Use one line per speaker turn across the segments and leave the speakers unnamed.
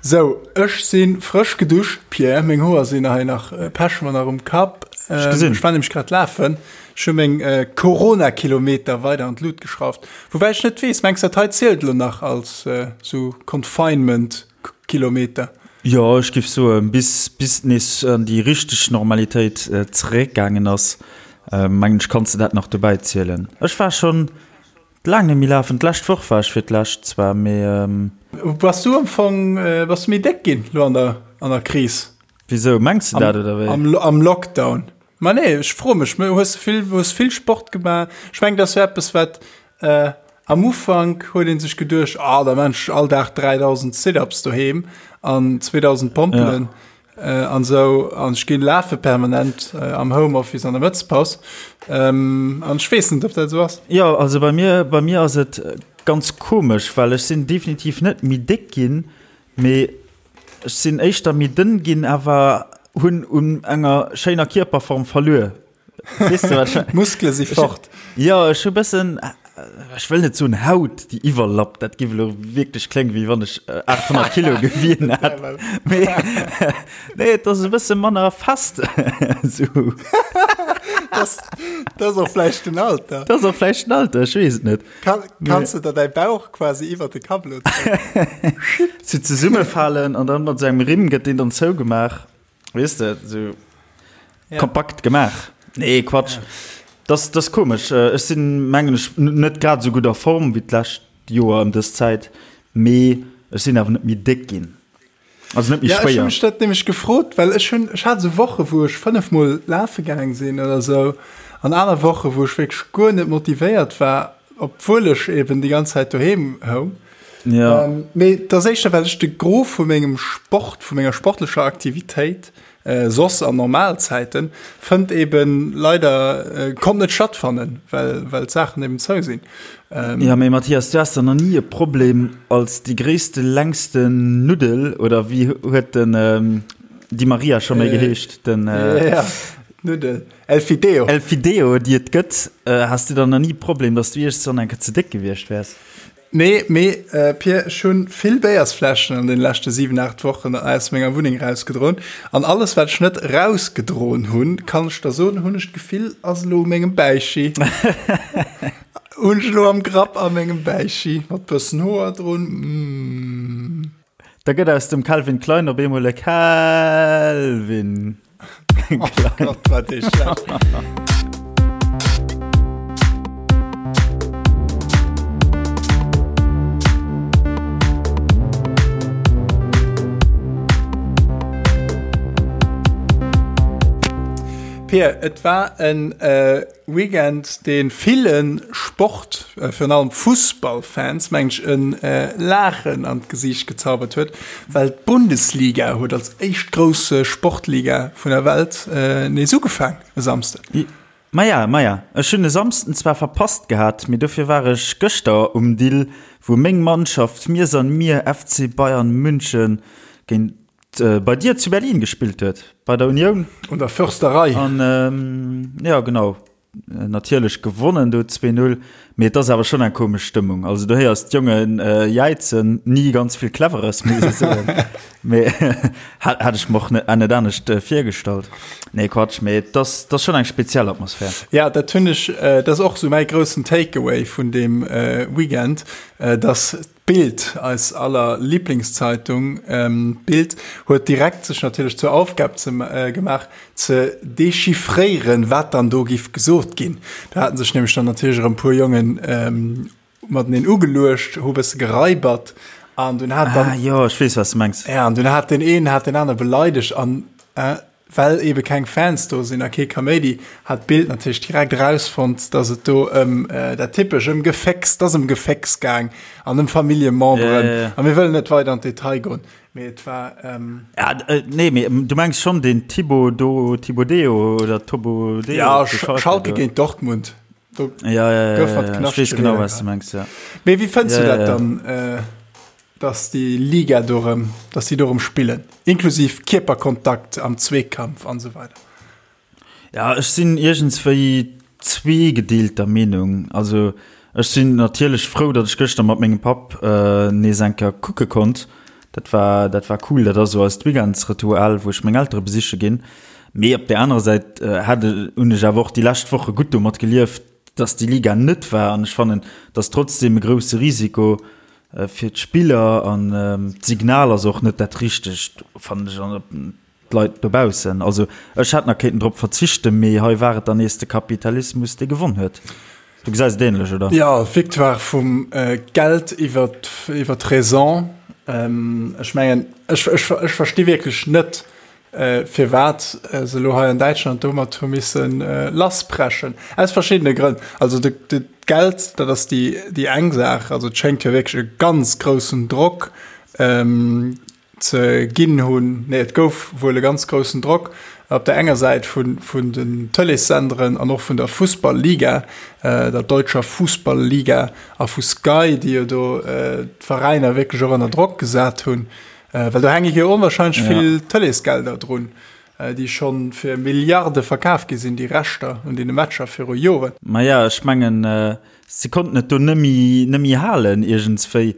Sou, ech si frësch geduscht, Pierre. Meng Hoer sinn hei nach, Pech mer nach um Kapp.
Ech gesinn.
Ech war nämlech grad lafen. Ech hu meng Corona-Kilometer weider an d'Lut geschrauft. Woubäi ech net weess, mengs dat hei zielt elo nach als sou Confinement-Kilometer?
Jo, ech giff soen, bis bis et nees an déi richteg Normalitéit zeréckgaangen ass, mengen ech, kanns de dat nach dobäi zielen. Ech war schonn Laang net méi lafen. D'lescht Woch war ech fir d'lescht zwar, mee.
Bass du am Fong, bass du méi déck ginn lo an der, an der Kris?
Wisou, mengs de dat oder
wéi? Am, am Lockdown. Ma nee, ech froe mech, hues de vill, hues vill Sport gemaach? Ech mengen, dat ass jo eppes, wat am Ufank huet ee sech geduecht, ah da maan ech all Dag 3.000 Sit-ups doheem an 2.000 Pompelen. Ja. An esou, an ech ginn lafe permanent am Homeoffice an der Mëttespaus. An ech weess net, ob dat esou ass.
Jo, also bei mir, bei mir ass et ganz komesch, well ech sinn definitiv net méi déck ginn, mee ech sinn éischter méi dënn ginn, awer hunn un enger schéiner Kierperform verluer.
Weess de wat ech. D'Muskele si fort.
Jo, ech hu bëssen, ech wëll net soen Haut déi iwwerlappt, dat géif elo wierklech kléngen, wéi wann ech 800 Kilo gewien hätt. Mee nee, et ass e bësse manner fest esou.
Dat ass och vläicht den Alter.
Dat ass och vläicht den Alter, ech weess et net.
Kann, kanns du der däi Bauch quasi iwwer de Kapp elo
zéien? Sou zesummefalen an dann mat esou engem Rimm gëtt deen dann zougemaach. Weess de, sou ja. kompakt gemaach. Nee, Quatsch. Ja. Das, das komesch. Äh, ech sinn mengen ech net grad sou gutt a Form wéi d'lescht Joer ëm dës Zäit, mee ech sinn awer net méi déck ginn.
Also net méi ja, schwéier. Ech hunn mech dat nämlech gefrot, well ech hunn ech hat sou Woche wou ech 5 mol lafe gaang sinn oder sou an aner Woche wou ech wierklech guer net motivéiert war, obwuel ech eben déi ganz Zäit doheem houng.
Ja.
Ähm, mee dat ass éischter, well ech de Gros vu mengem Sport, vu menger sportlecher Aktivitéit, äh, soss an Normalzäiten, fënnt eben leider, äh, konnt net stattfannen, well, well d'Saachen eben zou sinn.
Ähm, ja, mee Mathias, du has da nach nie e Problem als déi gréisste, längste Nuddel, oder wéi huet den ähm, Di Maria scho méi äh, geheescht? Den,
äh, ja, Nuddel. El Fideo.
El Fideo, déi et gëtt. Äh, has du dann nach nie e Problem, dass du iergendwann eng Kéier ze déck gewiescht wäers?
Nee, mee Pir, ech hunn vill Béiersfläschen an den leschte 7, 8 Wochen aus menger Wunneng rausgedroen. An alles wat ech net rausgedroen hunn, kann ech der soen, hunn ech d'Gefill ass elo u mengem Bäichi. Hunn ech elo am Grapp a mengem Bäichi mat bëssen Hoer drun.
Mmh. Da gëtt aus dem Calvin Klein op eemol e Kelvin.
Oh Gott, war dee schlecht. Pir, et war en äh, Weekend, dee ville Sport, virun allem Fussballfans, mengen ech, e Laachen an d'Gesiicht gezaubert huet, well d'Bundesliga huet als éischt grouss Sportliga vun der Welt nees ugefaang e Samsden.
Maja, maja, ech hunn e Samsden zwar verpasst gehat, mee dofir war ech gëschter um Dill, wou meng Mannschaft Mir san mir FC Bayern München géint bei dir zu Berlin gespillt huet, bei der Union.
Un der Försterei.
An jo, genau, natierlech gewonnen do 2-0, mee et ass awer schonn eng komesch Stëmmung. Also du héiers d'Jonge jäizen, ni ganz vill Cleveres, muss ech soen, mee hat ech mer och net anescht virgestallt. Nee, Quatsch, mee et ass schonn eng speziell Atmosphär.
Ja, dat hunn ech, dat ass och esou mäi groussen Takeaway vun deem Weekend, dass D'Bild, eis aller Lieblingszeitung, d'Bild huet direkt sech natierlech zur Aufgab ze gemaach, ze dechiffréieren, wat dann do giff gesot ginn. Do haten sech nämlech dann natierlech erëm e puer Jongen mateneen ugeluecht, hu bësse geraibert an dunn hat
dann. Ah jo, ech weess, wat s de mengs.
Ja, an dunn hat deen een hat deen aner beleidegt an Well ebe keng Fans do sinn a kee Kaméidi, hat d'Bild natierlech direkt erausfonnt, dass et do ëm dat typesch, ëm Gefécks, 't ass ëm Gefécks gaang an ëm Familljememberen.
Ja, ja, ja.
A mir wëllen net weider an d'Detail goen, mee et war.
Ja, nee, mee du mengs schonn den Thibaut do, Thibodeo oder Tobodeo?
Ja, Schalke géint Dortmund.
Do ja, ja, ja, gouf mat ja, ja. Ech weess genau, wat s du mengs, ja.
Mee wéi fënns du dat dann? Dass déi Liga do rëm, dass déi do rëm spillen, inklusiv Kierperkontakt am Zweekampf an esou weider.
Ja, ech sinn iergendswéi zweegedeelter Meenung. Also ech sinn natierlech frou, datt ech gëschter mat mengem Papp nees eng Kéier kucke konnt. Dat war, dat war cool. Dat ass esou eist Weekendsritual, wou ech meng Eltere besiche ginn. Mee op där anerer Säit hat, hunn ech awer och déi lescht Woche gutt domat gelieft, dass déi Liga net war. An ech fannen, et ass trotzdem e grousse Risiko fir d'Spiller an d'Signal ass och net dat richtegt, fannen ech. An d'Leit dobaussen. Also ech hätt nach kéinten drop verzichten, mee hei war et dann nees de Kapitalismus, dee gewonn huet. Du gesäis et ähnlech, oder?
Jo, d'Victoire vum Geld iwwer d'Raison. Ech mengen, ech versti wierklech net, firwat se elo hei an Däitschland domat hu misse lassbrechen. Aus verschiddene Grënn. Also d'Geld, dat ass déi eng Saach. Also et schéngt jo wierklech e ganz groussen Drock ze ginn hunn. Nee, et gouf wuel e ganz groussen Drock op der enger Säit vun, vun den Tëleessenderen an och vun der Fussball-Liga, der deutscher Fußball-Liga a vu Sky, déi jo do d'Veräiner wierklech och ënner Drock gesat hunn, well do hänke jo onwahrscheinlech vill Tëleesgelder drun, déi scho fir Milliarde verkaf gi sinn, déi Rechter un deene Matcher viru Joren.
Maja, ech mengen, se konnten et do nëmmi, nëmmi halen iergendswéi,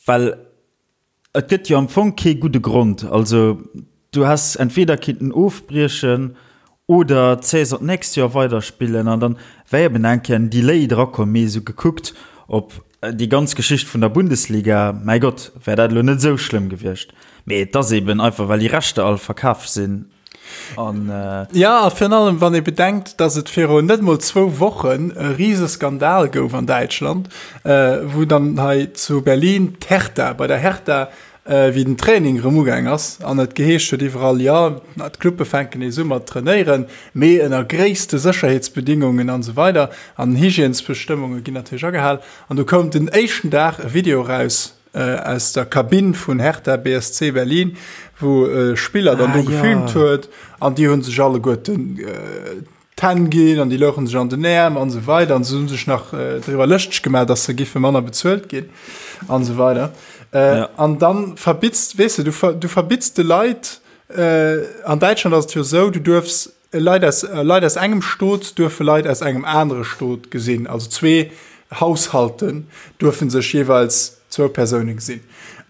well Et gëtt jo am Fong kee gudde Grond. Also du häss entweder kinnten ofbriechen oder d'Saison d'nächst Joer weiderspillen an dann wär eben eng Kéier en Delay drakomm. Mee esou gekuckt op déi ganz Geschicht vun der Bundesliga, mäi Gott, wär dat elo net esou schlëmm gewiescht. Mee et ass eben einfach, well déi Rechter all verkaf sinn.
An, äh, ja, a virun allem, wann ee bedenkt, dass et virun net mol zwou Wochen e rise Skandal gouf an Däitschland, äh, wou dann hei zu Berlin d'Hertha, bei der Hertha, äh, wéi den Training erëm ugaang ass an et geheescht huet iwwerall, jo, d'Clubbe fänken nees u mat trainéieren, mee ënner gréisste Sécherheetsbedingungen an esou weider an Hygiènesbestëmmunge ginn natierlech agehal. An du koum den éischten Dag e Video eraus, aus der Kabinn vun Hertha BSC Berlin, wou e Spiller dann do gefilmt huet an déi hu sech alleguerten d'Hänn ginn an déi louche sech an den Äerm an esou weider an se hu sech nach driwwer lëschteg gemaach, datt se giffe manner bezuelt ginn an esou weider. An dann verbitts, weess de, du verbitts de Leit, an Däitschland ass et jo esou, du duerfs Leit aus, Leit aus engem Stot duerfe Leit aus engem anere Stot gesinn. Also zwee Haushalten duerfe sech jeeweils zwou Persoune gesinn.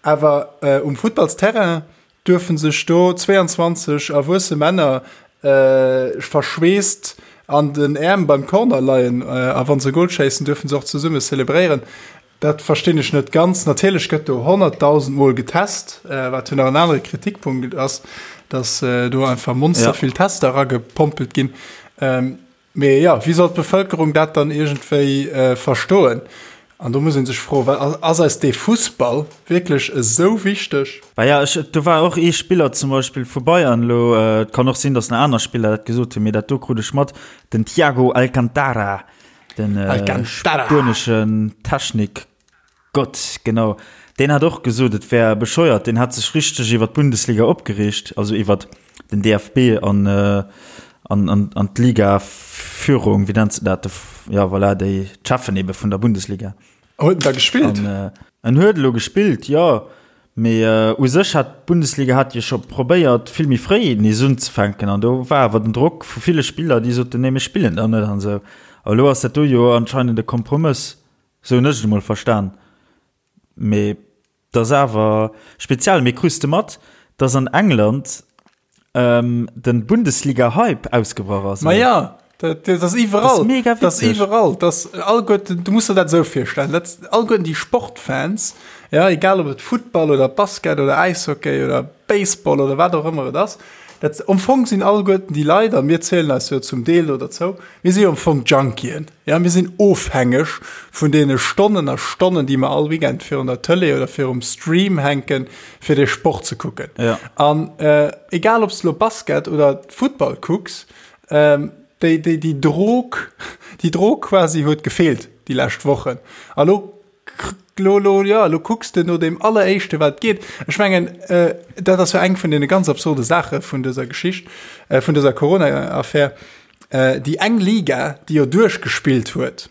Awer um Futtballsterrain duerfe sech do 22 erwuesse Männer verschweesst an den Äerm beim Corner leien. A wa se e Gol schéissen, duerfe se och zesumme zelebréieren. Dat verstinn ech net ganz. Natierlech gëtt do 100.000 Mol getest, wat jo nach en anere Kritikpunkt ass, datt do einfach monster vill Tester eragepompelt ginn. Mee jo, wéi soll d'Bevëlkerung dat dann iergendwéi verstoen? An do muss ee sech froen, well ass eis dee Fussball wierklech esou wichteg?
Bah ja, ech, do war och ee Spiller zum Beispill vu Bayern elo, et kann och sinn, datt nach aner Spiller dat gesot hunn, mee dat do krut ech mat, den Thiago Alcantara, Den äh, spueneschen Technikgott, genau. Deen hat och gesot, et wär bescheuert. Deen hat sech richteg iwwer d'Bundesliga opgereegt, also iwwer den DFB an, äh, an, an, an d'Liga-Führung, wéi nennt se dat? Ja, voilà, déi d'Cheffen ebe vun der Bundesliga.
Huet en da gespillt?
An, äh, en huet elo gespillt, jo. Mee u sech hat d'Bundesliga hat jo scho probéiert, vill méi fréi nees unzefänken an do war awer den Drock vu ville Spiller, déi soten, nee mir spillen dann net an esou. A elo ass dat do jo anscheinend e Kompromëss, esou hunn ech et emol verstan. Mee et ass awer speziell. Mee krus de mat, datt an England den Bundesliga-Hype ausgebrach ass?
Ma ja, dat, dat ass iwwerall. Dat ass mega witzeg. Dat ass iwwerall. Dat ass alleguerten, du muss der dat esou virstellen, dat alleguerten déi Sportfans, ja, egal ob et Futtball oder Basket oder Äishockey oder Baseball oder wat och ëmmer et ass, dat am Fong sinn alleguerten déi Leit, a mir zielen eis jo zum Deel do derzou, mir si jo am Fong Junkien. Ja, mir sinn ofhängeg vun deene Stonnen a Stonnen, déi mer all Weekend virun der Tëlee oder virum Stream hänken, fir dee Sport ze kucken.
Ja.
An äh, egal ob s du lo Basket oder Futtball kucks, ähm, déi, déi, déi Drog, déi Drog quasi huet gefeelt déi lescht Wochen. A lo, lo, lo, ja, lo kucks de no deem alleréischte wat geet. Ech mengen, äh, dat ass jo eng vun deene ganz absurde Saache vun dëser Geschicht, äh, vun dëser Corona-Affär. Déi eng Liga, déi jo duerchgespillt huet,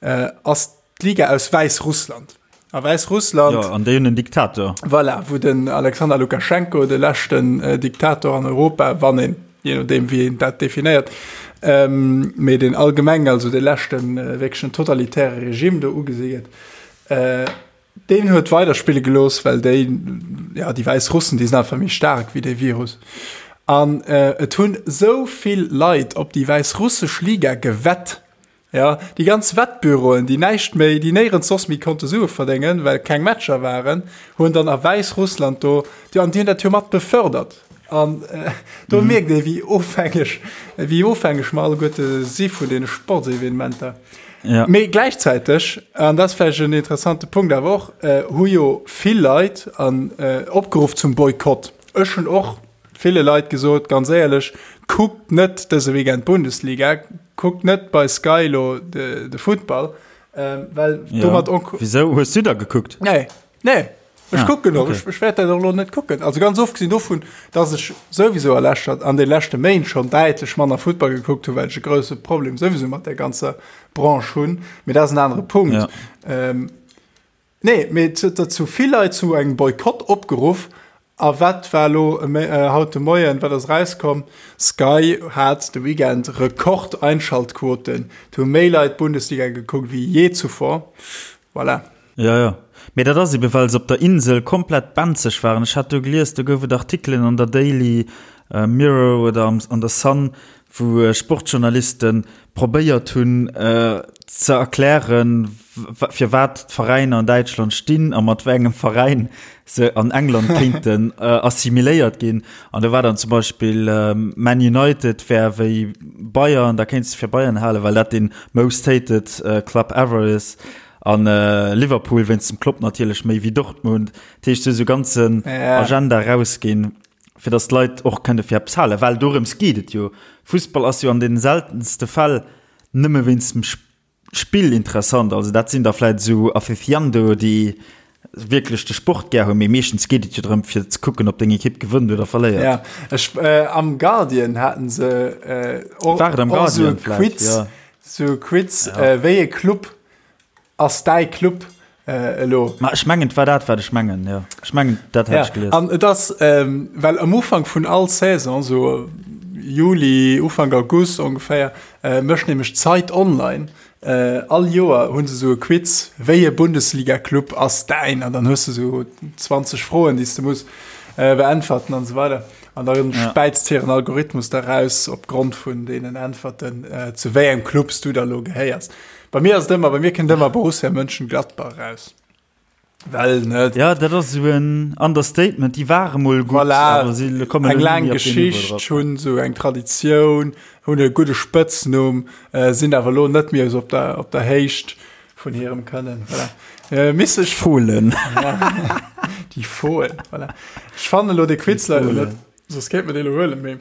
ass d'Liga aus Wäissrussland. A Wäissrussland.
Jo, an déi hunn en Diktator.
Voilà, wou den Alexander Lukaschenko, de leschten Diktator an Europa, wann een, jee nodeem wéi een dat definéiert, mee deen allgemeng, also de leschten wierklechen totalitäre Regime do ugesi gëtt. Deen huet weiderspille gelooss, well déi, ja, déi Wäissrussen, déi sinn einfach méi staark wéi dee Virus. An et hunn esou vill Leit op déi wäissrussesch Liga gewett, ja, déi ganz Wettbüroen, déi näischt méi, déi néierens soss méi konnte Sue verdéngen, well keng Matcher waren, hunn dann a Wäissrussland do, déi, an déi hunn dat jo mat befördert. An do mierkt ee wéi ofhängeg, wéi ofhängeg mer alleguerte si vun deene Sportsevenementer.
Ja.
Mee gläichzäiteg, an dat ass vläicht en interessante Punkt awer och, hu jo vill Leit an opgeruff zum Boykott. Ech hunn och ville Leit gesot, ganz éierlech, kuckt net dëse Weekend d'Bundesliga, kuckt net bei Sky elo de Futtball, well domat.
Ja. Wisou hues du da gekuckt?
Nee. Nee, ech ah, kucken och. Okay. Ech, ech wäert dat och lo net kucken. Also ganz ofgesinn dovun, dass ech souwisou a leschter, an de leschte Méint schon däitlech manner Futtball gekuckt hunn, well ech e grousse Problem souwisou mat der ganzer Branche hunn. Mee dat ass en anere Punkt.
Ja.
Ähm, nee, mee zu vill Leit zu engem Boykott opgeruff. A wat war lo äh, haut de Moien, wat ass rauskomm? Sky hat de Weekend Rekordeinschaltquoten. Et hu méi Leit Bundesliga gekuckt wéi je zuvor. Voilà.
Jo, jo. Mee dat ass ebe well se op der Insel komplett benzeg waren. Ech hat do gelies, do gouf et Artikelen an der Daily Mirror oder an der Sun, wou Sportjournaliste probéiert hunn ze erklären, firwat d'Veräiner an Däitschland stinn a mat wéi engem Veräin se an England kéinten assimiléiert ginn. An do war dann zum Beispill Man United wär wéi Bayern, da kéints de fir Bayern halen, well dat dee most hated club ever is. An Liverpool wéinst dem Klopp natierlech méi wéi Dortmund. Dat heescht, se hu sou ganzen Agenda rausginn, fir datt d'Leit och kënne fir eppes halen. Well dorëms geet et jo. Fussball ass jo an den seltenste Fäll nëmme wéinst dem Spill interessant. Also dat sinn da vläit esou Aficionado, déi wierklech de Sport gär hunn, mee meeschtens geet et jo drëm fir ze kucken, ob deng Ekipp gewënnt oder verléiert.
Ja, ech, am Guardian haten se och esou e Quiz, esou e Quiz, wéi e Club Ass däi Club elo?
Ma ech mengen, et war dat, wat ech mengen, jo. Ech mengen, dat hat ech gelies.
An et ass, well am Ufank vun all Saison, esou Juli, Ufank August ongeféier, mécht nämlech d'Zeit Online all Joer hu se esou e Quiz, wéi e Bundesliga-Club ass däin? An dann hues de esou 20 Froen, déi s de muss beäntwerten an esou weider. An da späizt hiren Algorithmus da raus, opgrond vun deenen Äntwerten, zu wéi engem Club s du da elo gehéiers. Bei mir ass et ëmmer, bei mir kënnt ëmmer Borussia Mönchengladbach eraus. Well, ne?
Ja, dat ass esou en Understatement. Déi ware mol gutt,
voilà,
awer si kommen
eng laang Geschicht, hunn esou eng Traditioun, hunn e gudde Spëtznumm, äh, sinn awer elo net méi esou op der, op der Héicht vun hirem Kënnen. Voilà. Äh, miss ech.
Fohlen.
Ja. Déi Fohlen, voilà. Ech fannen elo de Quiz leider net, soss kéint mer dee elo huelen, mee.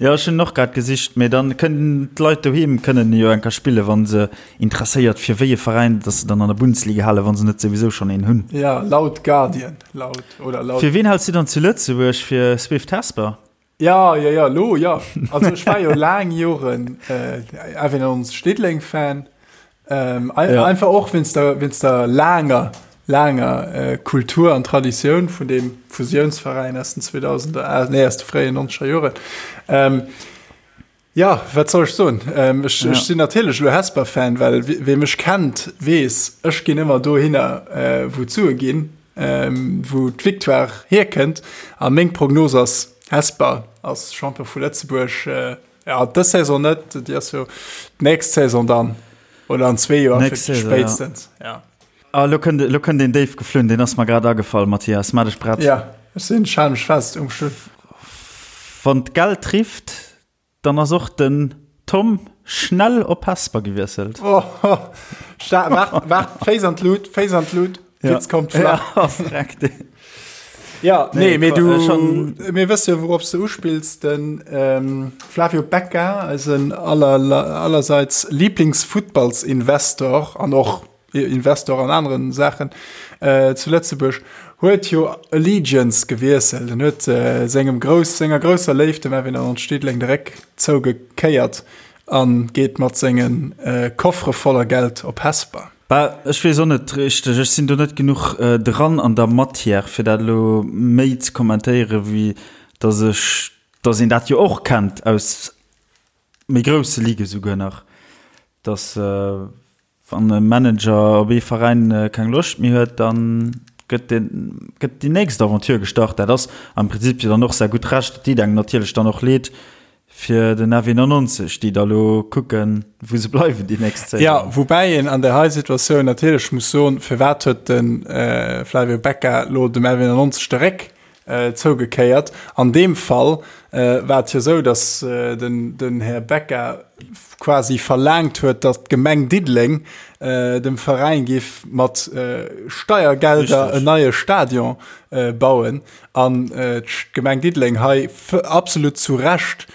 Jo, ech hunn och grad gesicht, mee dann kënnen d'Leit doheem kënnen jo eng Kéier spillen, wa se interesséiert fir wéi e Veräin dass se dann an der Bundesliga halen, wa se net souwisou schonn een hunn.
Ja, laut Guardian, laut oder laut.
Fir ween häls du dann zu Lëtzebuerg? Fir Swift Hesper?
Ja, ja, ja, lo ja. Also ech war jo laang Joren äh, Avenons Diddeleng-Fan. Ähm, ein, ja. Einfach och wéinst der, wéinst der laanger, laanger äh, Kultur an Traditioun vun dem Fusiounsveräin aus den 2000er, äh, nee, aus de fréien 90er Joren. Ähm, ja, wat soll ech soen? Ähm, ech, ja. ech sinn natierlech lo Hesper-Fan, well wie mech kennt, weess, ech ginn ëmmer dohinner, äh, wou d'Sue ginn, ähm, wou d'Victoire hierkënnt. A meng Prognos ass, Hesper ass Champion vu Lëtzebuerg. Äh, Ja, dës Saison net, déi ass jo d'nächst Saison dann oder an zwee Joer
Nächst Saison,
spéitstens. Ja. ja.
Ah, lo kënnt, lo kënnt een déif geflunn, deen ass mer grad agefall, Mathias, maach dech prett.
Ja, ech sinn, ech hale mech fest um Stull.
Wann d'Geld rifft, dann ass och den Tom schnell op Hesper gewiesselt.
Oh, waart, waart, Féiss an d'Lut, Féiss an d'Lut.
Ja.
Witz kommt flach.
Ja, freck dee.
Ja, nee,
nee,
mee du,
schon...
mir wësse jo, wourop s du uspills, den ähm, Flavio Becca, eisen aller, allerseits Lieblingsfuttballsinvestor an och Investor an aneren Saachen äh, zu Lëtzebuerg, huet jo Allegiance gewiesselt. En huet äh, sengem grouss, senger grousser Léift, dem Erwin Arnold Stedling, de Réck zougekéiert an geet mat sengen äh, Koffere voller Geld op Hesper.
Bah, ech weess och net richteg, ech sinn do net genuch dran an der Matière, fir dat elo méi ze kommentéieren, wéi datt ech, datt een dat jo och kennt aus méi grousse Ligue souguer nach, datt. Wann e Manager op ee Veräin keng Loscht méi huet, da gëtt deen, gëtt déi nächst Aventure gestart. Dat ass am Prinzip jo dann och säi gutt Recht. Et deet engem natierlech dann och leed fir den FW 99, déi da lo kucken, wou se bleiwen déi nächst
Saison. Jo, woubäi een an där hei Situatioun natierlech muss soen, firwat huet de Flavio Becca lo dem FW 99 de Réck Zougekéiert. An deem Fall war et jo esou, datt den Här Becca quasi verlaangt huet, datt d'Gemeng Diddeleng dem Veräin géif mat Steiergelder en neie Stadion bauen an d'Gemeng Diddeleng hei absolut zu Recht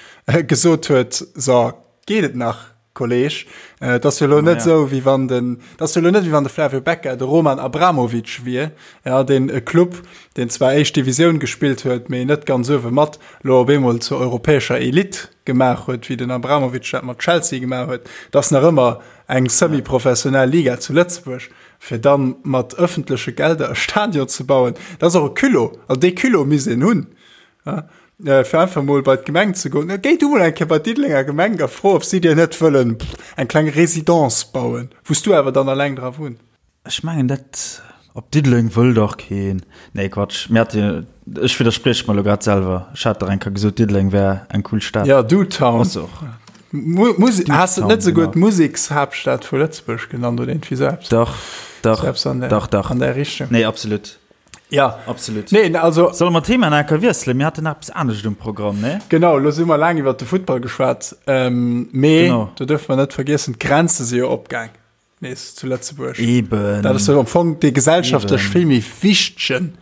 gesot huet, So, geet et nach? Kolleg, et ass jo elo net esou, wéi wann den, et ass jo elo net, wéi wann de Flavio Becca de Roman Abramovich wier, ja, deen e Club, deen zwar éischt Divisioun gespillt huet, mee net ganz uewe mat, elo op eemol zur europäescher Elite gemaach huet, wéi den Abramovich dat mat Chelsea gemaach huet. Et ass nach ëmmer eng semi-professionell Liga zu Lëtzebuerg, fir da mat ëffentleche Gelder e Stadion ze bauen, dat ass och e Culot, also dee Culot misst een hunn. Fir einfach mol bei d'Gemeng ze goen. Géi du mol eng Kéier bei d'Diddelenger Gemeng a fro, ob si dir net wëllen eng kleng Residence bauen, wou s du awer dann alleng dra wunns.
Ech mengen dat op Diddeleng wëll dach keen. Nee Quatsch, mir hate jo, ech widdersprieche mer elo grad selwer, ech hat dach eng Kéier gesot Diddeleng wär eng cool Stad.
Ja, Dutown. Ass se och. Mu-, has de et net esouguer d'Musekshaaptstad vu Lëtzebuerg genannt oder iergendwéi esou eppes?
Dach, dach, dach, dach.
An där Richtung.
Nee, absolut.
Ja.
Absolut.
Nee, also.
Solle mer d'Thema nach eng Kéier wiesselen? Mir haten nach eppes anescht um Programm, ne?
Genau, elo si mer laang iwwert de Futtball geschwat. Ähm, mee genau. do dürfe mer net vergiessen, d'Grenze si jo opgaang nees zu Lëtzebuerg.
Eben.
Dat ass jo am Fong dee gesellschaftlech vill méi wichtegen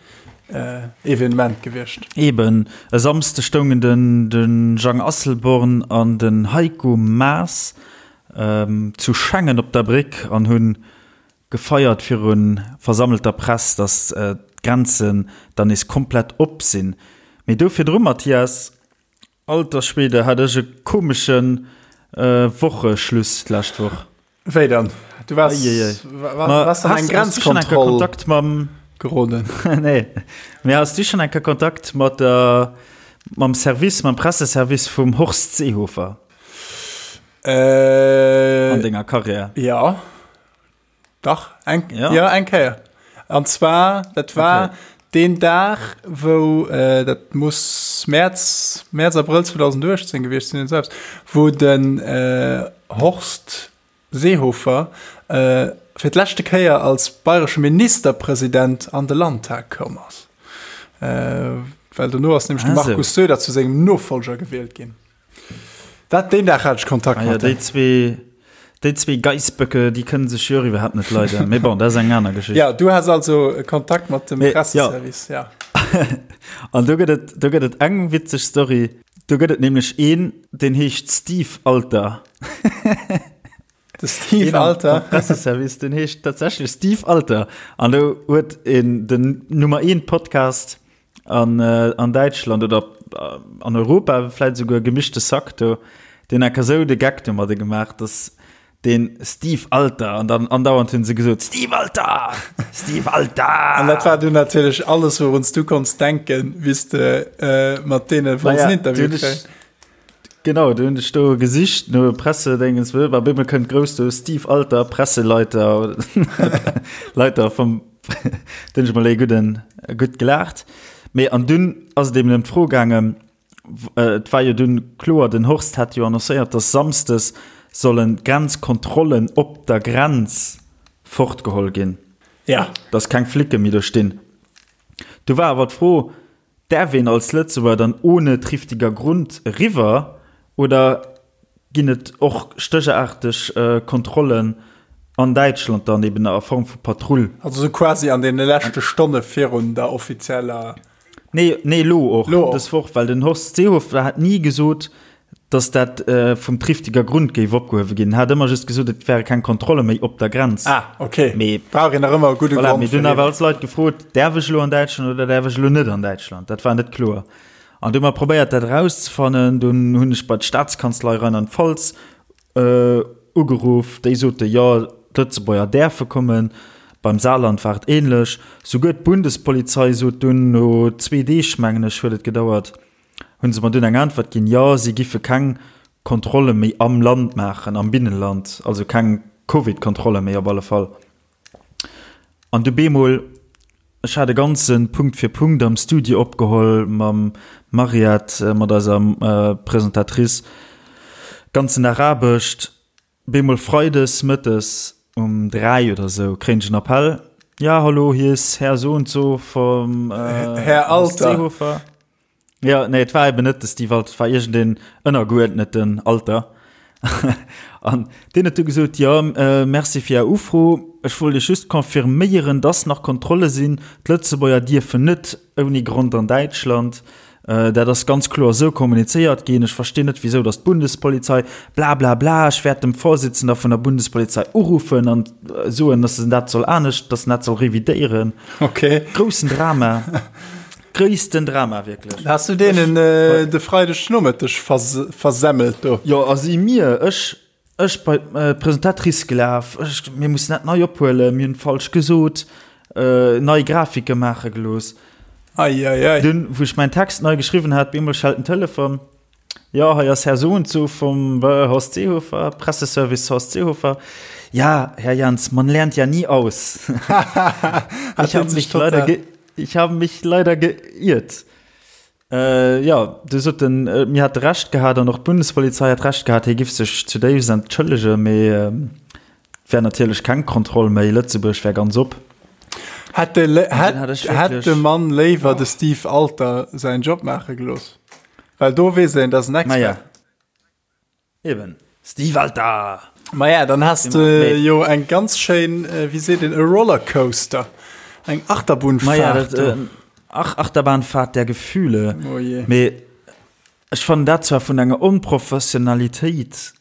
äh, Evenement gewiescht.
Eben. E Samsde stoungen den, den Jang Asselborn an den Heiko Maas ähm, zu Schengen op der Bréck an hunn Gefeiert viru versammelter Press, datt d'Grenzen dann nees komplett op sinn. Mee do virdru, Mathias, alter Schwede, hat ech e komesche Wocheschluss d'lescht Woch.
Wéi dann? Du waars, waars an eng Grenzkontroll
geroden? Nee, mee has du schonn eng Kéier Kontakt mat der, mam Service, mam Presseservice vum Horst Seehofer?
An
denger Karriär?
Jo. Dach, eng, ja. ja, eng Kéier. An zwar, dat war okay. den Dag, wou, äh, dat muss März, März, Abrëll 2018 gewiescht sinn, selbst, wou den äh, Horst Seehofer äh, fir d'leschte Kéier als bayresche Ministerpresident an de Landtag koum ass. Äh, well dono ass nämlech de Markus Söder zu sengem Nofolger gewielt ginn. Dat deen Dag hat ech Kontakt
ah, ja, déi zwee déi zwee Geissböcke, déi kënnen sech jo iwwerhaapt net leiden. Mee bon, dat ass eng aner Geschicht.
Ja, du has also Kontakt mat dem
Presseservice, ja. ja. An do gëtt et, do gëtt et eng witzeg Story. Do gëtt et nämlech een, deen heescht Steve Alter.
De Steve Alter.
Presseservice, den heescht tatsächlech Steve Alter. An do huet een den Nummer 1 Podcast an, äh, an Däitschland oder äh, an Europa vläit souguer gemischte Sack do, deen enker sou de Geck domadde gemaach, dass den Steve Alter an dann andauernd hunn se gesot Steve Alter! Steve Alter!
An dat war du natierlech alles, wourun s du konns denken, wéi s de äh, mat deene wollts en Interview kréien.
Genau, du hunn ech do gesicht no Pressedéngens, op eemol kënnt grouss do Steve Alter, Presseleiter, Leiter vum, do hunn ech mol ee gudden, gutt gelaacht. Mee an dunn ass et eben ëm d'Fro gaangen, et war jo dunn kloer, den Horst hat jo annoncéiert, datt samsdes sollen d'Grenzkontrollen op der Grenz fortgeholl ginn,
Ja.
datt keng Flicke méi do stinn. Du war awer d'Fro, Däerf een als Lëtzebuerger dann ohne triftiger Grund eriwwer oder ginn et och stéchaarteg Kontrollen an Däitschland dann eben a Form vu Patrull?
Also sou quasi an deene leschte Stonne virun der offizieller.
Nee, nee, elo och, dës Woch, well den Horst Seehofer hat ni gesot, dass dat vum triftiger Grund géif opgehuewe ginn. Hat ëmmer just gesot, et wäre keng Kontrolle méi op der Grenz.
Ah, okay. Mee brauch een nach ëmmer e gudde
voilà, Grond. Mee dunn awer all d'Leit gefrot, däerf ech elo an Däitschland oder däerf ech elo net an Däitschland? Dat war net kloer. An du hu mer probéiert, dat erauszefannen. Dunn hunn ech bei d'Staatskanzlei Rheinland-Pfalz ugeruff. Déi sote jo, d'Lëtzebuerger däerfe kommen. Beim Saarland war et änlech. Souguer d'Bundespolizei sot dunn no zwee Deeg, mengen ech, huet et gedauert, Hunn se mer dunn eng Äntwert ginn, jo, si giffe keng Kontrolle méi am Land maachen, am Binnenland, also keng. Covid-Kontrolle méi op alle Fall. An du bemol, ech hat e ganze Punkt fir Punkt am Studio opgeholl mam Mariette, mat eiser Presentatrice, ganzen Dag Aarbecht. Bemol Freides mëttes um 3 oder sou kréien ech en Appell, Ja, hallo, hier ist Herr so und so vom
Herr Alter.
Seehofer. Ja, nee, et war eben net de Steve Alter, et war iergendeen ënnergeuerdneten Alter. An deen huet du gesot, Jo, merci fir Är Ufro, ech wollt Iech just confirméieren, dass nach Kontrolle sinn, d'Lëtzebuerger dierfen net ouni Grond an Däitschland. Dat ass ganz kloer esou kommunizéiert ginn. Ech verstinn net, wisou datt d'Bundespolizei blablabla. Ech wäert dem Vorsitzender vun der Bundespolizei uruffen an soen, datt en dat soll anescht, datt en dat soll revidéieren.
Okay.
Groussen Drama. Gréissten Drama, wierklech.
Has du deenen de Freideg Nomëtteg versemmelt do?
Jo, a si mir, ech, Ech bei d'Presentatrice gelaf, ech, mir mussen dat nei ophuelen, mir hunn falsch gesot, nei Grafike maache gelooss.
Ei, ei, ei.
Dunn, wou ech mäin Text nei geschriwwen hat, bemol schellt den Telefon, Jo, hei ass Här Soundso vum Horst Seehofer, Presseservice Horst Seehofer. Ja, Herr Jans, man lernt ja nie aus. Ich habe mich leider ge, ich habe mich leider geirrt. Jo, du sot en, mir hätte Recht gehat an och d'Bundespolizei hätt Recht gehat, hie giff sech zudéifst entschëllegen, mee et wär natierlech keng Kontroll méi, Lëtzebuerg wär ganz op.
Hätt de, hätt de Mann léiwer de Steve Alter säin Job maache gelooss, well do weess een, dat ass en Expert.
Maja. Eben. Steve Alter!
Maja, dann has de jo eng ganz schéin, wéi seet een, e Rollercoaster, eng Achterbunfahrt.
Maja, dat, ach, Achterbahnfahrt der Gefühle.
Oh je.
Mee ech fannen dat zwar vun enger Onprofessionalitéit,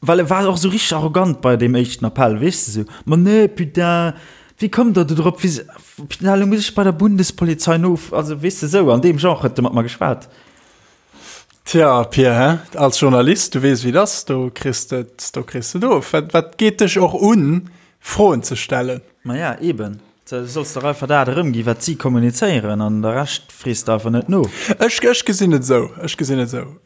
well e war och sou richteg arrogant bei deem éischten Appell, weess de, sou, Ma nee, putain, wéi kommt der do drop, wéi, putain, elo muss ech bei der Bundespolizei nof, also weess de, sou an deem Genre huet e mat mer geschwat.
Tja, Pir, hä? Als Journalist, du weess, wéi et ass, do kriss de et, do kriss de et of. Wat, wat geet dech och un, Froen ze stellen?
Maja, eben. Du solls dach einfach dat erëmginn, wat si kommunizéieren, an de Rescht frees de einfach net no.
Ech, ech gesinn et esou, ech gesinn et esou.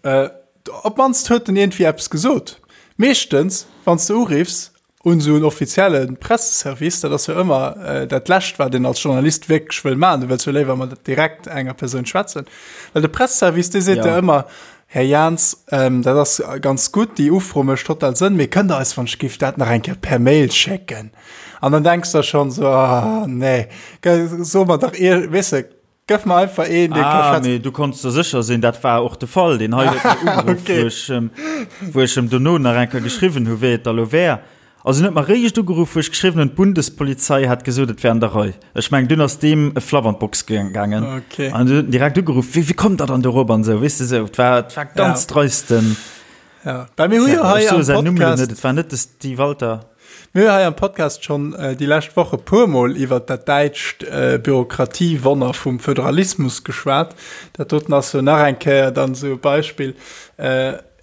Op d'mannst huet en iergendwéi eppes gesot. Meeschtens, wann s de uriffs, un esou en offizielle Presseservice, dat ass jo ëmmer dat Lescht, wat een als Journalist wierklech wëll maachen. Du wëlls jo léiwer mat direkt enger Persoun schwätzen. Well de Presseservice, dee seet der ëmmer, Här Jans, dat ass ganz gutt, déi Ufro mécht total Sënn, mee kënnt Der eis wann ech giff dat nach eng Kéier per Mail schécken? An dann denks der schonn esou, Ah, nee, so mer dach, weess de, Gëff mer einfach een,
dee ka schwätzen. Ah, mee du konns der sécher sinn, dat war och de Fall. Deen hei huet mir ugeruff, okay. wou ech em, wou ech em dono nach eng Kéier geschriwwen hu wéi et da lo wär. Also en huet mer réischt ugeruff, wou ech geschriwwen hunn, d'Bundespolizei hätt gesot, et wär an der Rei. Ech mengen, dunn ass deem e Flapp an d'Box gaangen.
Okay.
An du huet en direkt ugeruff, wéi, wéi kommt der dann dorop an esou, weess de esou. Et war, et war ganz
ja.
dreisten.
Ja. Well mir hu jo hei am
Podcast. Net, et war net de Steve Walter.
Mir hu hei am Podcast schonn déi lescht Woch e puermol iwwert dat däitscht Bürokratiewonner vum Föderalismus geschwat. Dat doten ass jo nach eng Kéier dann esou e Beispill.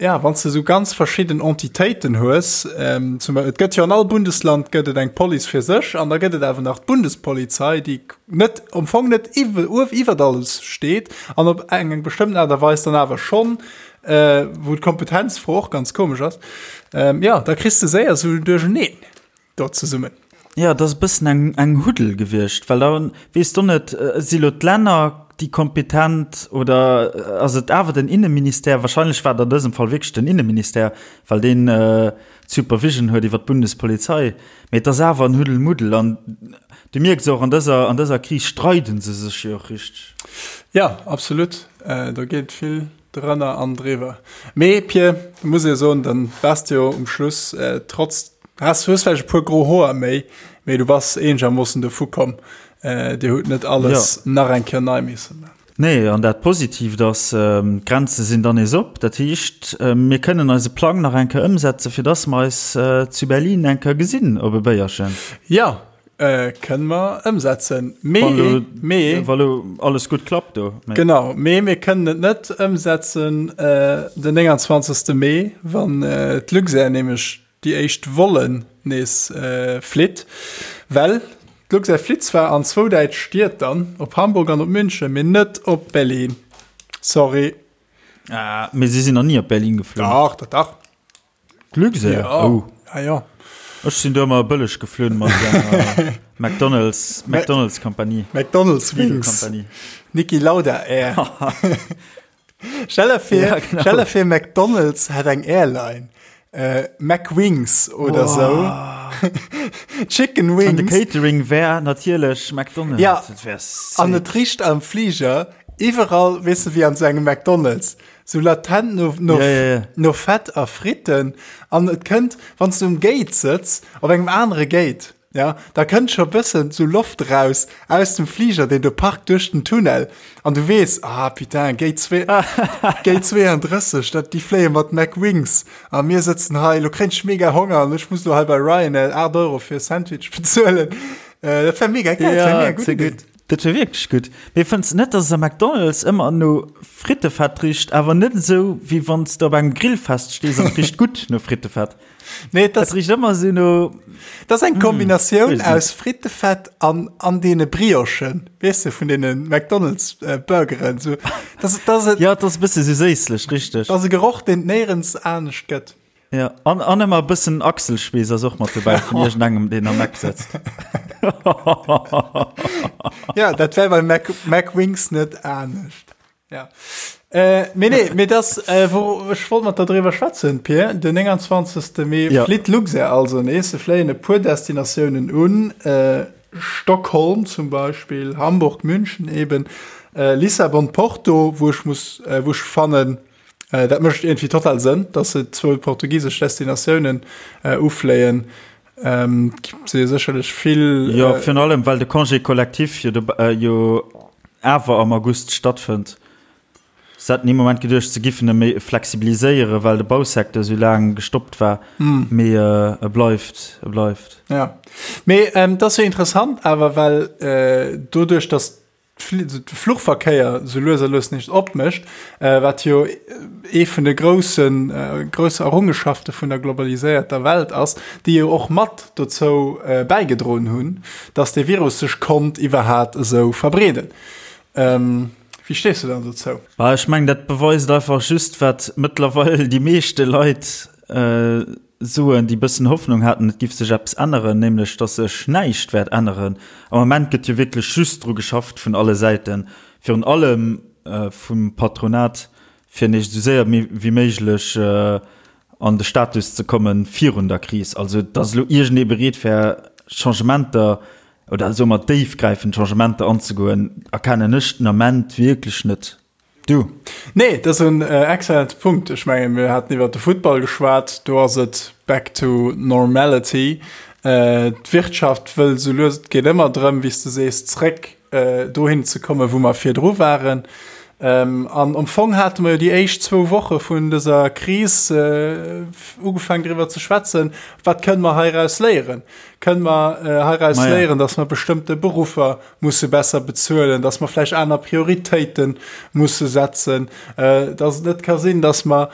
Ja, wann s de esou ganz verschidden Entitéiten hues, zum Beispill, et gëtt jo an all Bundesland gëtt et eng Police fir sech an da gëtt et awer nach d'Bundespolizei, déi net, am Fong net iwwert alles steet an op eng bestëmmten Aart a Weis dann awer schonn Äh, wou d'Kompetenzfro och ganz komesch ass. Ähm, ja, da kriss de séier sou en Duercheneen do zesummen.
Ja, dat ass e bëssen eng, eng Huddel gewiescht, well da weess de net, si lo d'Länner déi kompetent oder ass et awer den Inneministère? Wahrscheinlech war et an dësem Fall wierklech den Inneministère, well deen d'Supervision huet iwwer d'Bundespolizei. Mee et ass awer en Huddelmuddel an du mierks och, an dëser, an dëser Kris streide se sech jo och richteg.
Ja, absolut. Do geet vill Drënner an driwwer. Mee Pir, muss ee soen, dann waars de jo um Schluss trotz, has, hues vläicht e puer gro Hoer méi, mee du bass eenegermoossen dovu komm. Dir hutt net alles nach eng Kéier nei misse man.
Nee, an dat Positiivt ass, d'Grenze sinn dann nees op. Dat heescht, mir kënnen eise Plang nach eng Kéier ëmsetzen, fir dass mer eis zu Berlin eng Kéier gesinn op e Béierchen.
Jo, Kënne mer ëmsetzen. Mee, mee.
Wa lo alles gutt klappt do.
Genau, mee mir kënnen et net ëmsetzen den 29. Mee, wann d'Luxair nämlech déi éischt Vollen nees flitt. Well d'Luxair flitt zwar an zwou däitsch Stied dann, op Hamburg an op München, mee net op Berlin. Sorry.
Ah, mee si sinn nach ni op Berlin geflunn.
Dach, dach, dach.
D'Luxair?
Ja.
Oh.
Ja, ja.
Ech sinn do ëmmer bëlleg geflunn mat enger McDonald's, McDonald's Kompanie.
McDonald's Wings.
Kompanie.
Niki Lauda Air. Stell der vir,
Ja, genau.
stell der vir McDonald's hätt eng Airline. Äh, McWings oder sou. Chicken
An de
Wings.
Catering wär natierlech McDonald's.
Ja.
Dat wär sick.
An et richt am Flieger iwwerall, weess de, wéi an sou engem McDonald's. Sou latent no, no,
Ja, ja, ja.
no Fett a Fritten. An et kënnt, wann s du um Gate sëtz, op engem anere Gate, ja, da kënnt scho bëssen sou Loft raus aus dem Fliger, deen do parkt duerch den Tunnel. An du weess, ah putain, Gate zwee, Gate 32, dat, déi fléie mat McWings. A mir sëtzen hei, lo kréien ech mega Honger an ech muss lo hei bei Ryanair 8 Euro fir e Sandwich bezuelen. Äh, dat wär mega geil, dat wär mega
Ja,
gutt
ze
Idee.
gutt. Dat wär wierklech gutt. Mee fënns de net, dass es am McDonald's ëmmer no Frittefett richt, awer net esou, wéi wann s de op engem Grillfest stees an et richt gutt no Frittefett?
Nee, dat
Et richt ëmmer esou no.
Dat ass eng Kombinatioun
weess net.
aus Frittefett an, an deene Briochen, weess de, vun deene McDonald's äh, Burgeren. So, das, das, das,
Ja, et ass e bësse sou séisslech, richteg.
das ass e Geroch, deen et néierens anescht gëtt.
Ja, an, an ëmmer e bëssen Achselschweess ass och mat dobäi vun iergendengem, deen am Eck sëtzt.
Ja, dat wär bei Mac, McWings net anescht. Ja. Äh, mee nee, mee das, äh, wo, ech wollt mat der driwwer schwätzen, Pir. Den 29. Mee
Ja.
flitt Luxair also nees. Se fléien e puer Destinatiounen un. Äh, Stockholm zum Beispill, Hamburg, München eben, äh, Lissabon, Porto, wou ech muss, äh, wou ech fannen, Äh, dat mécht irgendwie total Sënn, dass se zwou portugisesch Destinatiounen äh, ufléien. Ähm, si sécherlech vill.
Jo,
äh,
virun allem, well de Congé collectif jo, äh, jo awer am August stattfënnt. Se haten ee Moment geduecht, se giffen e méi flexibiliséieren, well de Bausecteur esou laang gestoppt war. Mm. Mee äh, e bleift, e bleift.
Ja. Mee ähm, dat ass jo interessant awer, well äh, doduerch, dass de Fluchverkéier sou lues a lues nees opmécht, wat jo ee vun de groussen, grousse Errungenschafte vun der globaliséierter Welt ass, déi jo och mat dozou bäigedroen hunn, datt dee Virus sech konnt iwwerhat esou verbreeden. Wéi stees du dann dozou?
Bah, ech mengen, dat beweist einfach just, wat mëttlerweil déi meeschte Leit soen, déi bëssen Hoffnung haten, et giff sech eppes änneren, nämlech dass sech näischt wäert änneren. Am Ament gëtt jo wierklech just dru geschafft vun alle Säiten, virun allem vum Patronat, fir nees esou séier wéi méiglech an de Status ze komme virun der Kris. Also dass elo iergendee bereet wär, Changementer oder soe mer déifgräifend Changementer anzegoen, erkennen ech den Ament wierklech net.
Du. Nee, dat ass en excellente Punkt. Ech mengen, mir haten iwwert de Futtball geschwat, do ass et back to normality. D'Wirtschaft wëll esou lues, et geet ëmmer drëm, wéi s de sees, zréck dohin ze kommen, wou mer virdru waren. An am Fong hate mer jo déi éischt zwou Woche vun dëser Kris ugefaangen driwwer ze schwätzen, wat kënne mer heiraus léieren? Kënne mer heiraus léieren, datt mer bestëmmte Beruffer musse besser bezuelen, dass mer vläicht aner Prioritéite musse setzen, dass et net ka sinn, dass mer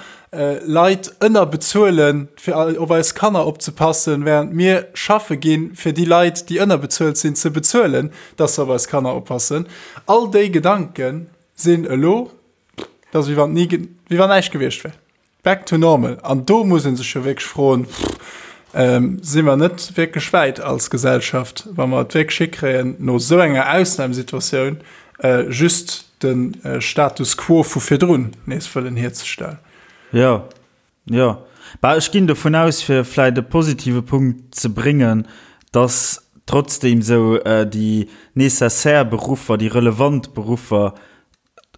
Leit ënnerbezuelen, fir op eis Kanner opzepassen, während mir schaffe ginn, fir déi Leit, déi ënnerbezuelt sinn, ze bezuelen, dass se op eis Kanner oppassen. All déi Gedanke sinn elo, dat ass wéi wann ni, wéi wann näischt gewiescht wär. Back to normal. An do muss ee sech jo wierklech froen, Si mer net wierklech wäit als Gesellschaft, wa mer et wierklech hikréien, no esou enger Ausnamsituatioun just de Status quo vu virdrun nees wëllen hierzestellen?
Jo, jo. Bah, ech ginn dovun aus, fir vläicht e positive Punkt ze bréngen, dass trotzdeem esou déi nécessaire Beruffer, déi relevant Beruffer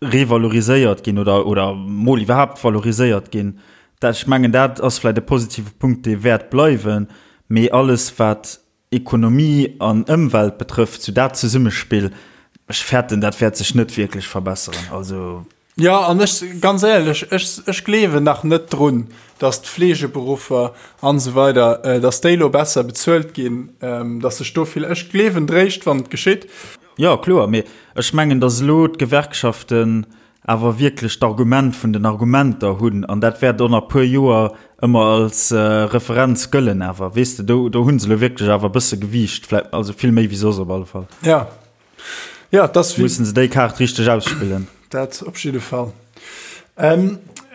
revaloriséiert ginn oder, oder mol iwwerhaapt valoriséiert ginn. Dat, ech mengen, dat ass vläicht e positive Punkt, dee wäert bleiwen. Mee alles, wat Ekonomie an Ëmwelt betrëfft, sou dat Zesummespill, ech fäerten, dat wäert sech net wierklech verbesseren. Also.
Jo, an ech, ganz éierlech, ech, ech gleewen nach net drun, dass d'Fleegeberuffer an esou weider, dass déi elo besser bezuelt ginn, dass sech do vill, ech gleewen dréischt, wann et geschitt.
Jo, kloer, mee ech mengen, datt elo d'Gewerkschaften awer wierklech d'Argument vun den Argumenter hunn, an dat wäert och nach e puer Joer ëmmer als Referenz gëllen awer, weess de, do, do hu se elo wierklech awer e bësse Gewiicht, vläicht, also vill méi wéi soss op alle Fall.
Ja, ja, dat ass.
Mussen se déi Kaart richteg ausspillen.
Dat op jidde Fall.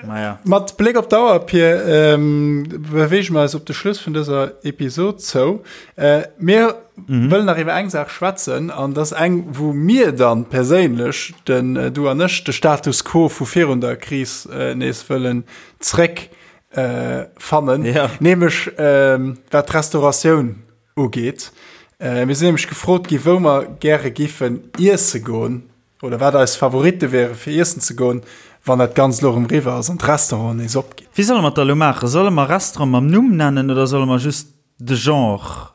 Maja.
Mat Bléck op d'Auer, Pir, ähm, beweege mer eis op de Schluss vun dëser Episod zou. Äh, mir mhm. wëllen nach iwwer eng Saach schwätzen an das eng, wou mir dann perséinlech, den äh, du an ech, de Status quo vu virun der Kris äh, nees wëllen zréck äh, fannen.
Ja.
Nämlech ähm, wat d'Restauratioun ugeet. Äh, mir sinn nämlech gefrot gi, wou mer gäre giffen iesse goen oder wat eis Favoritte wäre fir iessen ze goen, wann dat Ganzt elo erëm eriwwer ass an d'Restauranten nees opginn.
Wéi solle mer et da elo maachen? Solle mer Restaurant mam Numm nennen oder solle mer just de Genre,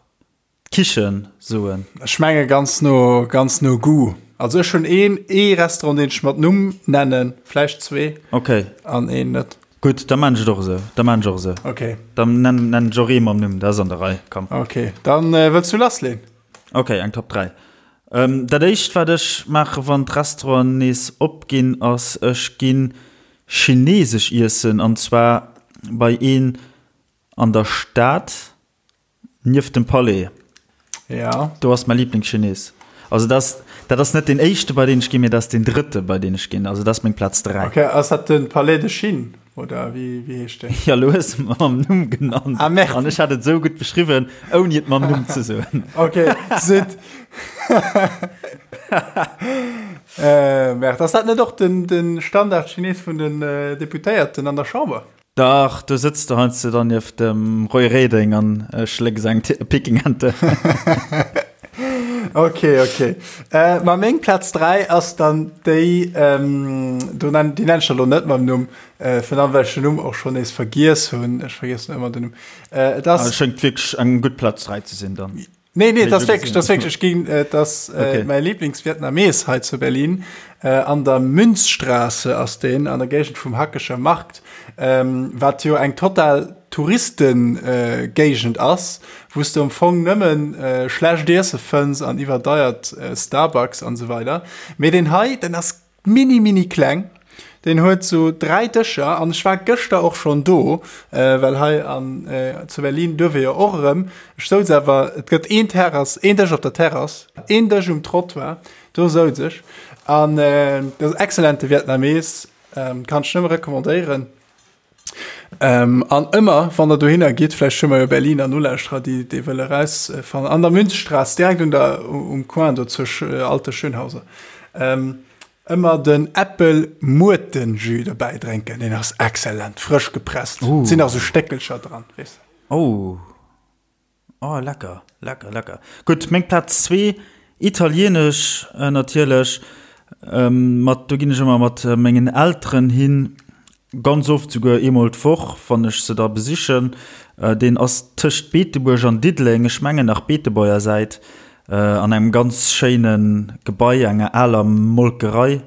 d'Kichen, soen?
Ech menge ganz no, ganz no Goût. Also ech hunn een, ee Restaurant, deen ech mat Numm nennen, vläicht zwee.
Okay.
An een net.
Gutt, da maan ech et och esou. Da maan ech och esou.
Okay.
Dann nennen, nennen ech och ee mam Numm, dat ass an der Rei. Komm.
Okay, dann wëlls du lassleen?
Okay, eng Top 3. Ähm, dat éischt wat ech maache wann d'Restauranten nees opginn, ass ech ginn chinesesch iessen an zwar bei een an der Stad nieft dem Palais.
Ja.
Do ass mäi Lieblingschines. Also dat ass, dat ass net deen éischte bei deen ech ginn, mee dat ass deen drëtte bei deen ech ginn. Also dat ass meng Plaz 3.
Okay, ass dat den Palais de Chine oder wéi, wéi heescht deen?
Ja, lo hues de mer mam Numm genannt.
Ah, merde.
An ech hat et esou gutt beschriwwen, ouni et mam Numm ze soen.
Okay, zut. äh, merde. Ass dat net och den, den Standard-Chines vun den äh, Deputéierten an der Chamber?
Dach, do sëtz de heiansdo dann nieft dem Roy Reding an schlécks eng Pekingente.
Ok, ok. Äh, ma meng Plaz 3 ass dann déi, ähm, do nenn, déi nenn ech der lo net mam Numm, äh, vun allem well ech den Numm och schonn nees vergiess hunn. Ech vergiessen ëmmer den Numm. Äh, et ass.
Ah, schéngt wierklech eng gutt Plaz 3 ze sinn dann.
Nee, nee, das wirklich, das wirklich ging, äh, das äh, okay. mein Lieblingsvietnames hei zu Berlin äh, an der Münzstraße ass den an der Gegend vum Hackescher Markt, ähm, wat jo eng total Touristengegend äh, ass, wous du am Fong nëmmen äh, schlecht Iesse fënns an iwwerdeiert äh, Starbucks an so weider. Mee den hei, den ass Mini mini kleng. Deen huet sou 3 Dëscher an ech war gëschter och schonn do, well hei an zu Berlin duerf ee jo och erëm. Ech souz awer, et gëtt een Terrass, een Dësch op der Terrass, een Dësch um Trottoir, do souz ech. An dat ass excellente Vietnamees, kann ech nëmme recommandéieren. Ähm, an ëmmer wann der dohinner gitt, vläicht hu mer jo Berliner Nolauschterer, déi déi wëlle rausfannen, an der Münzstraße, direkt un der, um Coin do zur Alte Schönhauser, ähm, ëmmer den Äppel-Muerten-Jus dobäi drénken, deen ass excellent, frësch gepresst,
Uh.
sinn nach sou Stéckelcher dran, weess de.
Oh. Oh lecker, lecker, lecker. Gutt, meng Plaz zwee, italienesch natierlech. Mat, do ginn ech ëmmer mat mengen Elteren hin, ganz oft souguer eemol d'Woch, wann ech se da besichen. Deen ass tëscht Beetebuerg an Diddeleng, ech mengen nach Beetebuerger Säit, an engem ganz schéine Gebai, enger aler Molkerei.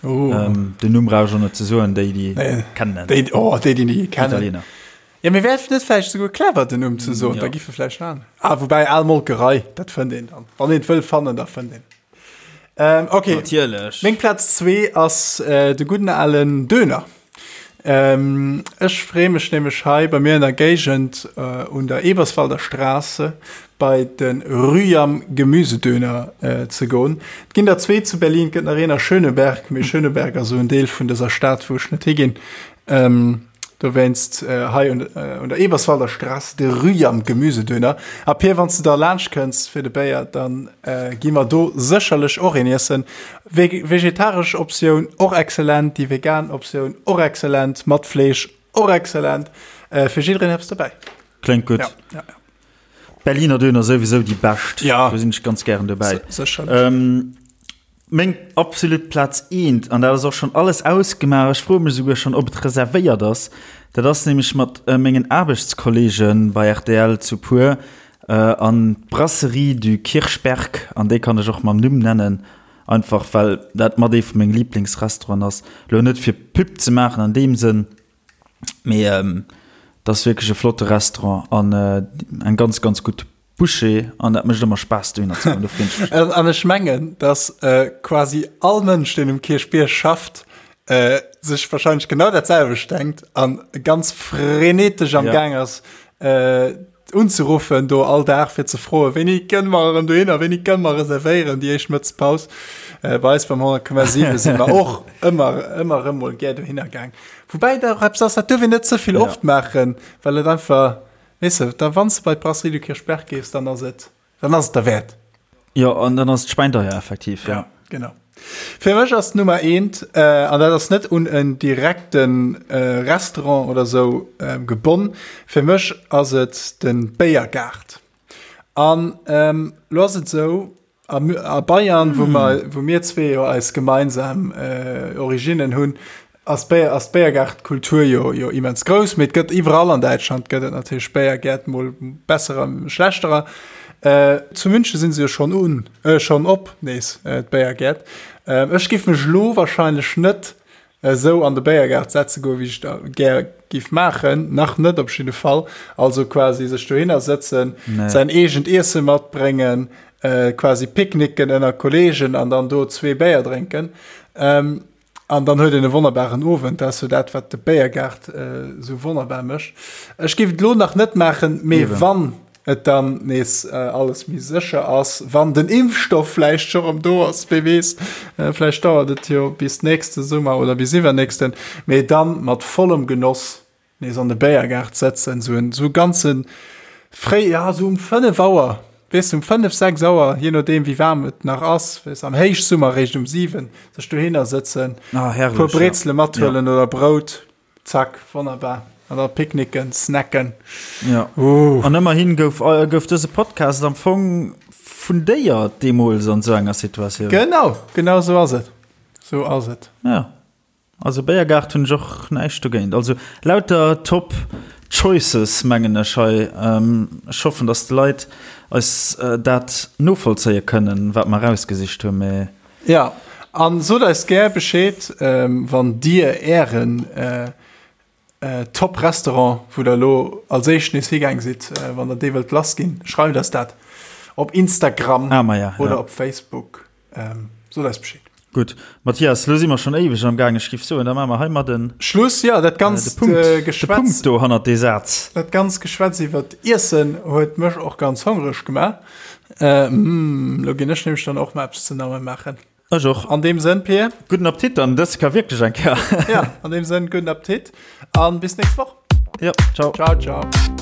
Den Numm brauch ech och net ze soen, déi déi kennen en.
Déi, oh, déi déi kennen.
Italiener.
Ja, mee wär et net vläicht esouguer clever, den Numm ze soen? Da giffe vläicht an. Ah, woubäi, al Molkerei, dat fënnt een dann. Wann een et wëll fannen, da fënnt een. Ähm, okay.
Natierlech.
Meng Plaz zwee ass äh, de gudden alen Döner. Ähm, ech freeë mech nämlech hei bei mir an der Géigend äh, un der Eberswalder Straße bei de Rüham Gemüsedöner äh, ze goen. Et ginn der zwee zu Berlin, et gëtt nach een a Schöneberg, mee Schöneberg ass esou en Deel vun dëser Stad, wou ech net higinn. Ähm, Dowéinst hei un der Eberswalder Straße de Rüham Gemüsedöner. A Pir, wann s de da laanscht kënns fir de Béier, dann gi mer do sécherlech och een iessen. Vegetaresch Optioun och excellent, déi vegan Optioun och excellent, mat Fleesch och excellent. Fir jiddereen eppes dobäi.
Kléngt gutt.
Ja, ja, ja.
Berliner Döner souwisou déi bescht.
Ja.
Do sinn ech ganz gären dobäi.
Sécherlech.
Meng absolut Plaz eent, an dat ass och schonn alles ausgemaach, ech froe mech esouguer schonn, ob et reservéiert ass, dat ass nämlech mat mengen Aarbechtskolleege bei rtl zu puer an d'Brasserie du Kirchberg, an déi kann ech och mam Numm nennen, einfach well dat mat ee vu menge Liblingsrestauranten ass. Elo net fir Pub ze maachen an deem Sënn, mee et ass wierklech e flotte Restaurant an eng ganz, ganz gutt Boucher an dat mécht ëmmer Spaass dohinner ze goen, do freen ech mech.
An ech mengen, dass quasi all Mënsch, deen um Kierchbierg schafft, sech wahrscheinlech genau dat selwecht denkt an ganz frenetesch am Gaang ass. unzeruffen do all Dag fir ze froen, wéini kënne mer erëm dohinner, wéini kënne mer reservéieren déi éischt Mëttespaus. Bei eis beim 100,7 si mer och ëmmer ëmmer erëm mol gär dohinner gaang. Woubäi dat och eppes ass, dat duerf een net ze vill oft maachen, well et einfach, weess de, da wann s de bei d'Brasserie du Kirchberg gees, dann ass et Dann ass et derwäert.
Jo, an dann ass et schweindeier effektiv, ja.
Ja, genau. Fir mech ass d'Nummer eent, an dat ass net un en direkte Restaurant oder sou gebonn, fir mech ass et de Béiergaart. An lo ass et sou, a Bayern, wou mer, wou mir zwee jo eis gemeinsam Originnen hunn, ass d'Béier, ass d'Béiergaartkultur jo, jo immens grouss, mee et gëtt iwwerall an Däitschland gëtt et natierlech Béiergäert, mol besserer, schlechterer. Äh, zu München sinn se jo schonn un, äh, schonn op nees, äh, d'Béiergäert. Äh, ech giff mech lo wahrscheinlech net esou an de Béiergaart setze goen, wéi ech da gär giff maachen, nach net op jidde Fall. Also quasi sech dohinner sëtzen, nee. säin eegent Iesse matbréngen, äh, quasi picknicken ënner Kollegen an dann do zwee Béier drénken. Ähm, An dann huet een e wonnerbaren Owend. Dat ass jo dat, wat de Béiergaart esou wonnerbar mécht. Ech géif et elo nach net maachen, mee wann et dann nees alles méi sécher ass, wann den Impfstoff vläicht scho rëm do ass, wee weess, vläicht dauert et jo bis nächste Summer oder bis iwwernächsten, mee dann mat vollem Genoss Nees an de Béiergaart sëtzen, sou en sou ganze fréi, ja sou um 5 Auer, weess de, um 5, 6 Auer, je nodeem wéi waarm et nach ass, weess am Héichsummer réischt um 7, sech dohinner sëtzen,
Ah, herrlech,
puer Brezele mathuelen oder Brout, zack, wonnerbar, an da picknicken, snacken.
Ja. Uh. An ëmmerhin gouf, gouf dëse Podcast am Fong fundéiert deemools an sou enger Situatioun.
Genau, genau sou ass et, sou ass et.
Ja. Also Béiergaart hunn ech och näischt dogéint. Also lauter top choices mengen ech hei. Ech hoffen dass d'Leit eis dat novollzéie kënnen wat mer erausgesicht hunn, mee.
Jo, an sot eis gär Bescheed wann dir ären Top Restaurant wou der elo als éischt nees higaang sidd, wann der dee wëllt lass ginn, schreift eis dat op Instagram
ah, ma ja,
oder
ja.
op Facebook. Ähm, sot eis Bescheed.
Gutt, Mathias, lo si mer schonn éiweg am Gaang. Ech giff soen, da maache mer heimat en
Schluss. Ja, dat ganzt
äh, de Punkt,
äh,
de Punkt do hannert dee Saz.
Dat ganzt Geschwätz iwwer Iessen huet mech och ganz hongreg gemaach. Äh, mm, lo ginn ech nämlech dann och mal eppes ze namme maachen.
Ech och.
An deem Sënn, Pir.
Gudden Appetit dann, dës ka wierklech eng Kéier.
Ja, an deem Sënn, gudden Appetit an bis nächst Woch.
Ja, ciao.
Ciao, ciao.